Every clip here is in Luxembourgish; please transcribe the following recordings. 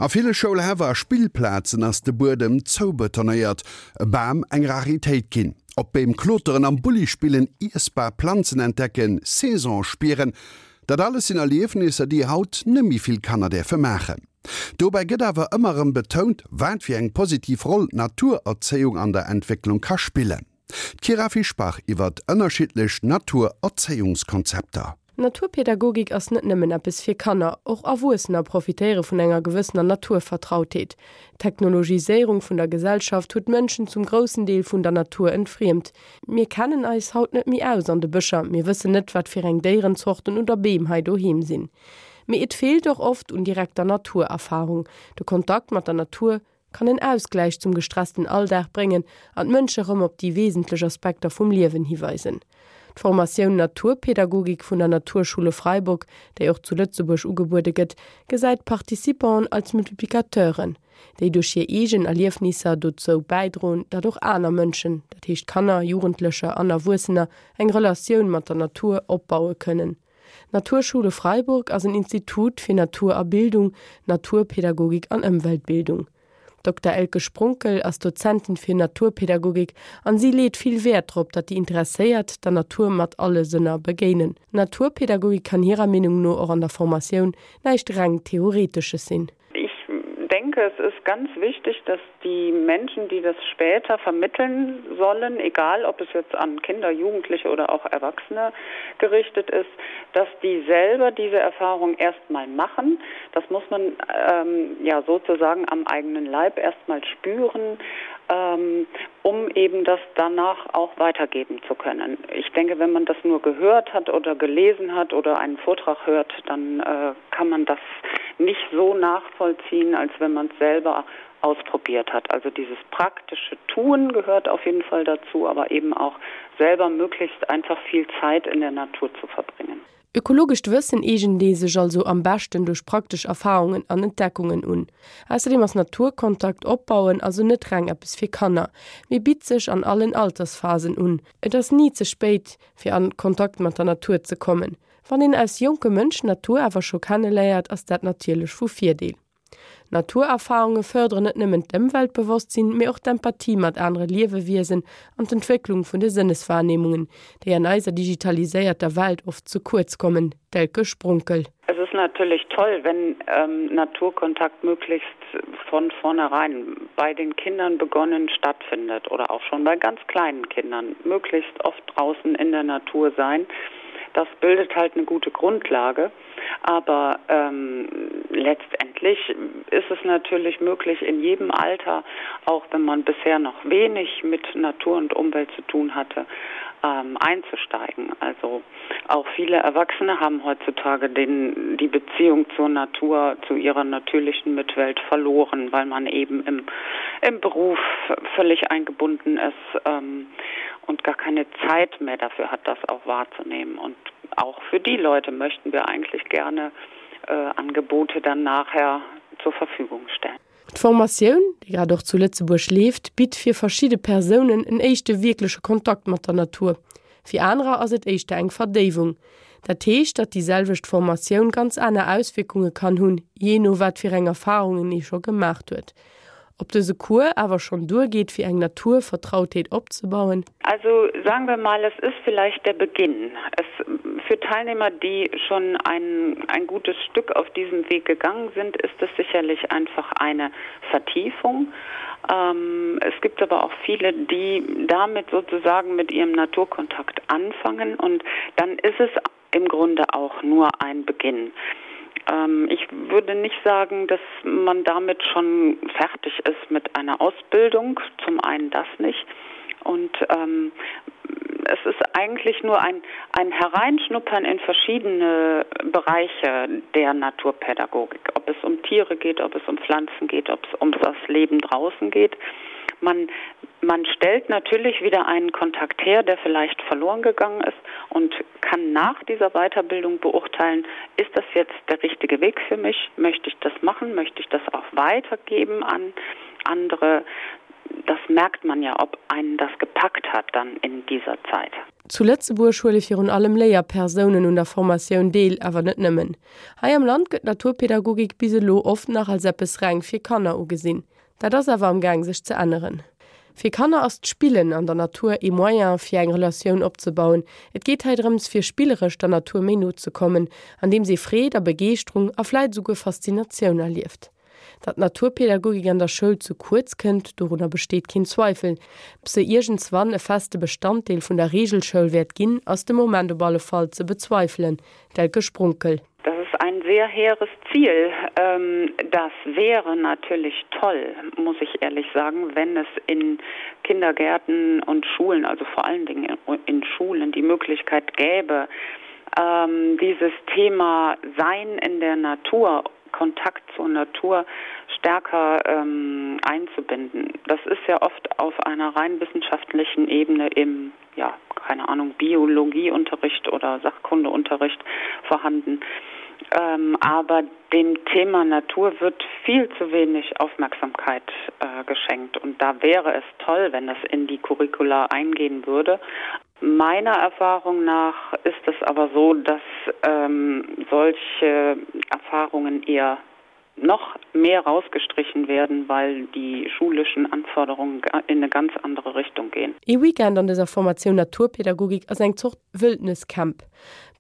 A ville Schoulhäff a Spillplazen ass de Buedem zoubetonéiert, e Bam eng Raritéit ginn. Op Beem kloteren, am Bulli spillen, iessbar Planzen entdecken, Saison spieren, dat alles sinn Erliefnisser, déi haut nëmmi vill Kanner däerfe maachen. Dobäi gëtt awer ëmmer erëm betount, wat fir eng positiv Roll d'Naturerzéiung an der Entwécklung ka spillen. D'Kyra Fischbach iwwert ënnerschiddlech Naturerzéiungskonzepter. Naturpädagogik ass net nëmmen eppes fir Kanner, och Erwuessener profitéiere vun enger gewëssener Naturvertrautheet. D'Technologiséierung vun der Gesellschaft huet d'Mënschen zum groussen Deel vun der Natur entfriemt. Mir kennen eis haut net méi aus an de Bëscher, mir wëssen net, wat fir eng Déierenzorten oder Beem hei doheem sinn. Mee et feelt och oft un direkter Naturerfarung. De Kontakt mat der Natur kann en Ausgläich zum gestressten Alldag bréngen an d'Mënsche rëm op déi wesentlech Aspekter vum Liewen hiweisen. D'Formatioun Naturpädagogik vun der Naturschule Freiburg, déi och zu Lëtzebuerg ugebuede gëtt, gesäit d'Participanten als Multiplicateuren, déi duerch hir eegen Erliefnisser dozou bäidroen, datt och aner Mënschen, dat heescht Kanner, Jugendlecher an Erwuessener, eng Relatioun mat der Natur opbaue kënnen. D'Naturschule Freiburg ass en Institut fir Natur a Bildung, Naturpädagogik an Ëmweltbildung. D'Dokter Elke Sprunkel ass Dozentin fir Naturpädagogik an si leet vill Wäert drop, datt déi Interesséiert der Natur mat alle Sënner begéinen. Naturpädagogik kann hirer Meenung no och an der Formatioun näischt reng Theoretesches sinn. Ich denke, es ist ganz wichtig, dass die Menschen, die das später vermitteln sollen, egal ob es jetzt an Kinder, Jugendliche oder auch Erwachsene gerichtet ist, dass die selber diese Erfahrung erstmal machen. Das muss man ähm, ja sozusagen am eigenen Leib erstmal spüren, ähm, um eben das danach auch weitergeben zu können. Ich denke, wenn man das nur gehört hat oder gelesen hat oder einen Vortrag hört, dann äh, kann man das nicht so nachvollziehen, als wenn man es selber ausprobiert hat. Also dieses praktische Tun gehört auf jeden Fall dazu, aber eben auch selber möglichst einfach viel Zeit in der Natur zu verbringen. Ökologescht Wëssen eegent ee sech also am beschten duerch praktesch Erfarungen an Entdeckungen un. Ausserdeem ass Naturkontakt opbauen also net reng eppes fir Kanner, mee bitt sech an allen Altersphasen un. Et ass ni ze spéit fir an Kontakt mat der Natur ze kommen. Wann een als jonke Mënsch d'Natur awer scho kenneléiert, ass dat natierlech vu Virdeel. Naturerfarunge fërderen net nëmmen d'Ëmweltbewosstsinn, mee och d'Empathie mat anere Liewewiesen an d'Entwécklung vun de Sënneswahrnehmungen, déi an eiser digitaliséierter Welt oft ze kuerz kommen, D'Elke Sprunkel. Es ist natürlich toll, wenn ähm, Naturkontakt möglichst von vornherein bei den Kindern begonnen stattfindet oder auch schon bei ganz kleinen Kindern möglichst oft draußen in der Natur sein. Das bildet halt eine gute Grundlage. Aber ähm, letztendlich ist es natürlich möglich, in jedem Alter, auch wenn man bisher noch wenig mit Natur und Umwelt zu tun hatte, ähm, einzusteigen. Also auch viele Erwachsene haben heutzutage den, die Beziehung zur Natur, zu ihrer natürlichen Mitwelt verloren, weil man eben im, im Beruf völlig eingebunden ist ähm, und gar keine Zeit mehr dafür hat, das auch wahrzunehmen. Und auch für die Leute möchten wir eigentlich gerne äh, Angebote dann nachher zur Verfügung stellen. D'Formatioun, déi grad och zu Lëtzebuerg leeft, bitt fir verschidde Persounen en éischte wierkleche Kontakt mat der Natur. Fir anerer ass et éischter eng Verdéiwung. Dat heescht, datt déi selwecht Formatioun ganz aner Auswierkunge kann hunn, jee no wat fir eng Erfarungen ee scho gemaacht huet. Ob dëse Cours awer schonn duergeet, fir eng Naturvertrautheet opzebauen? Also sagen wir mal, es ist vielleicht der Beginn. Es für Teilnehmer, die schon ein, ein gutes Stück auf diesem Weg gegangen sind, ist es sicherlich einfach eine Vertiefung. Ähm, es gibt aber auch viele, die damit sozusagen mit ihrem Naturkontakt anfangen und dann ist es im Grunde auch nur ein Beginn. Ähm, ich würde nicht sagen, dass man damit schon fertig ist mit einer Ausbildung, zum einen das nicht. Und ähm, es ist eigentlich nur ein, ein Hereinschnuppern in verschiedene Bereiche der Naturpädagogik, ob es um Tiere geht, ob es um Pflanzen geht, ob es um das Leben draußen geht. Man, man stellt natürlich wieder einen Kontakt her, der vielleicht verloren gegangen ist und kann nach dieser Weiterbildung beurteilen, ist das jetzt der richtige Weg für mich? Möchte ich das machen? Möchte ich das auch weitergeben an andere? Das merkt man ja, ob einen das gepackt hat dann in dieser Zeit. Zu Lëtzebuerg huele virun allem Léierpersounen un der Formatioun deel, awer net nëmmen. Hei am Land gëtt d'Naturpädagogik bis elo oft nach als eppes reng fir Kanner ugesinn. Dat ass awer am Gaang sech ze änneren. Fir Kanner ass d'Spillen an der Natur ee Moyen fir eng Relatioun opzebauen. Et geet hei drëms fir spilleresch der Natur méi no ze kommen, andeems ee Freed a Begeeschterung a vläit esouguer Faszinatioun erlieft. Datt d'Naturpädagogik an der Schoul ze kuerz kënnt, dorunner besteet keen Zweifel. Ob se iergendswann e feste Bestanddeel vun der Reegelschoul wäert ginn, ass de Moment op alle Fall ze bezweifelen. D'Elke Sprunkel. Das ist ein sehr hehres Ziel. Ähm, das wäre natürlich toll, muss ich ehrlich sagen, wenn es in Kindergärten und Schulen, also vor allen Dingen in Schulen die Möglichkeit gäbe, ähm, dieses Thema Sein in der Natur, Kontakt zur Natur stärker ähm, einzubinden. Das ist ja oft auf einer rein wissenschaftlichen Ebene im ja, keine Ahnung, Biologieunterricht oder Sachkundeunterricht vorhanden. Ähm, aber dem Thema Natur wird viel zu wenig Aufmerksamkeit äh, geschenkt und da wäre es toll, wenn das in die Curricula eingehen würde. Meiner Erfahrung nach ist es aber so, dass ähm, solche Erfahrungen eher noch mehr rausgestrichen werden, weil die schulischen Anforderungen in eine ganz andere Richtung gehen. Ee Weekend an dëser Formatioun Naturpädagogik ass eng Zort Wëldnescamp.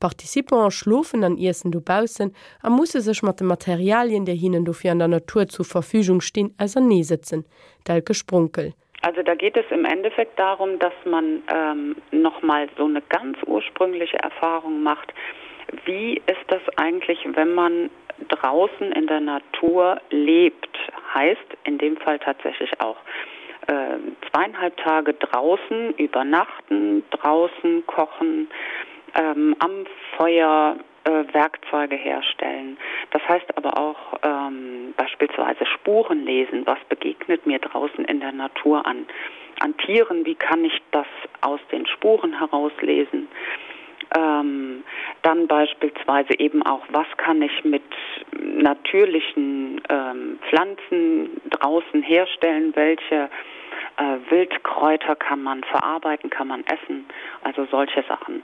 D'Participanten schlofen an iessen dobaussen a musse sech mat de Materialien, déi hinnen dofir an der Natur zur Verfügung stinn, auserneesëtzen. D'Elke Sprunkel. Also da geht es im Endeffekt darum, dass man ähm, noch mal so eine ganz ursprüngliche Erfahrung macht. Wie ist das eigentlich, wenn man draußen in der Natur lebt, heißt in dem Fall tatsächlich auch äh, zweieinhalb Tage draußen übernachten, draußen kochen, ähm, am Feuer äh, Werkzeuge herstellen. Das heißt aber auch ähm, beispielsweise Spuren lesen, was begegnet mir draußen in der Natur an an Tieren, wie kann ich das aus den Spuren herauslesen? Ähm, dann beispielsweise eben auch, was kann ich mit natürlichen ähm, Pflanzen draußen herstellen, welche äh, Wildkräuter kann man verarbeiten, kann man essen, also solche Sachen.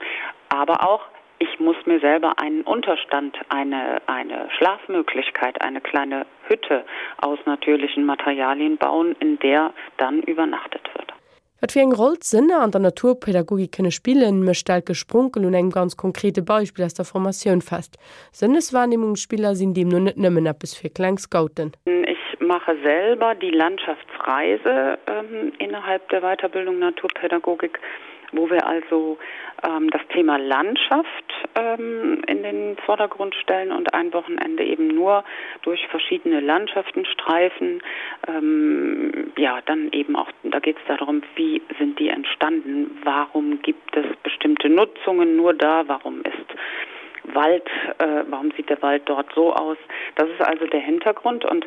Aber auch ich muss mir selber einen Unterstand, eine, eine Schlafmöglichkeit, eine kleine Hütte aus natürlichen Materialien bauen, in der dann übernachtet wird. Wat fir eng Roll d'Sënner an der Naturpädagogik kënne spillen, mécht d'Elke Sprunkel un engem ganz konkrete Beispill aus der Formatioun fest. Sënneswahrnehmungsspiller sinn deemno net nëmmen eppes fir kleng Scouten. Ich mache selber die Landschaftsreise innerhalb der Weiterbildung Naturpädagogik. wo wir also ähm, das Thema Landschaft ähm, in den Vordergrund stellen und ein Wochenende eben nur durch verschiedene Landschaften streifen. Ähm, ja, dann eben auch da geht es darum, wie sind die entstanden, warum gibt es bestimmte Nutzungen nur da, warum ist Wald, äh, warum sieht der Wald dort so aus? Das ist also der Hintergrund und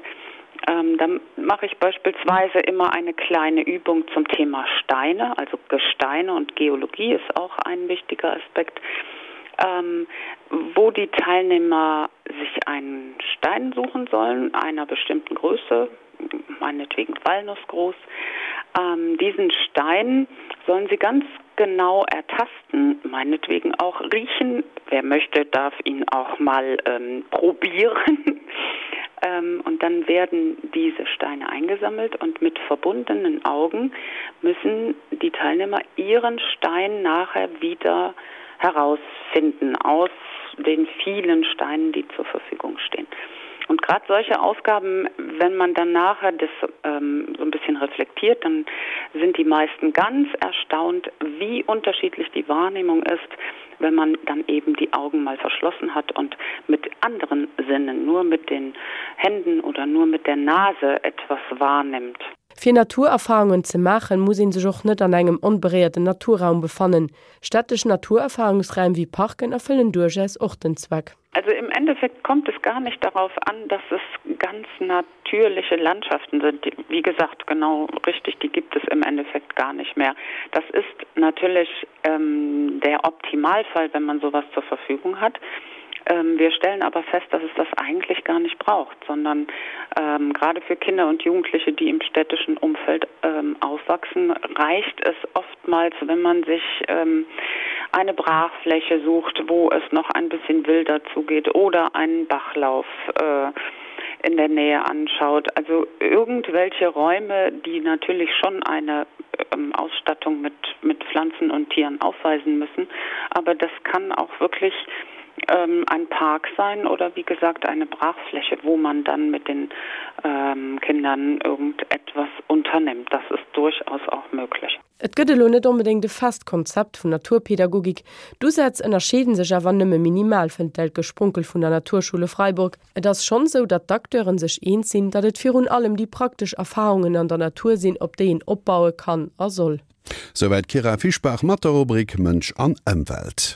ähm, dann mache ich beispielsweise immer eine kleine Übung zum Thema Steine, also Gesteine und Geologie ist auch ein wichtiger Aspekt, ähm, wo die Teilnehmer sich einen Stein suchen sollen, einer bestimmten Größe, meinetwegen Walnuss groß. Ähm, diesen Stein sollen sie ganz genau ertasten, meinetwegen auch riechen. Wer möchte, darf ihn auch mal ähm, probieren. Ähm, und dann werden diese Steine eingesammelt und mit verbundenen Augen müssen die Teilnehmer ihren Stein nachher wieder herausfinden aus den vielen Steinen, die zur Verfügung stehen. Und gerade solche Aufgaben, wenn man dann nachher das ähm, so ein bisschen reflektiert, dann sind die meisten ganz erstaunt, wie unterschiedlich die Wahrnehmung ist, wenn man dann eben die Augen mal verschlossen hat und mit anderen Sinnen, nur mit den Händen oder nur mit der Nase etwas wahrnimmt. Fir Naturerfarungen ze maachen, muss een sech och net an engem onberéierten Naturraum befannen. Städtesch Naturerfarungsräim wéi Parken erfëllen duerchaus och den Zweck. Also im Endeffekt kommt es gar nicht darauf an, dass es ganz natürliche Landschaften sind. Die, wie gesagt, genau richtig, die gibt es im Endeffekt gar nicht mehr. Das ist natürlich ähm, der Optimalfall, wenn man sowas zur Verfügung hat. Ähm, wir stellen aber fest, dass es das eigentlich gar nicht braucht. braucht, sondern ähm, gerade für Kinder und Jugendliche, die im städtischen Umfeld ähm, aufwachsen, reicht es oftmals, wenn man sich ähm, eine Brachfläche sucht, wo es noch ein bisschen wilder zugeht oder einen Bachlauf äh, in der Nähe anschaut. Also irgendwelche Räume, die natürlich schon eine ähm, Ausstattung mit, mit Pflanzen und Tieren aufweisen müssen. Aber das kann auch wirklich ähm, ein Park sein oder wie gesagt eine Brachfläche, wo man dann mit den ähm, Kindern irgendetwas unternimmt. Das ist durchaus auch möglich. Et gëtt elo net onbedéngt e fest Konzept vun Naturpädagogik. D'Usätz ënnerscheeden sech awer nëmme minimal, fënnt d'Elke Sprunkel vun der Naturschule Freiburg. Et ass schonn esou, datt d'Acteuren sech eens sinn, datt et virun allem déi praktesch Erfarungen an der Natur sinn, op déi een opbaue kann a soll. Souwäit d'Kyra Fischbach mat der Rubrik Mënsch an Ëmwelt.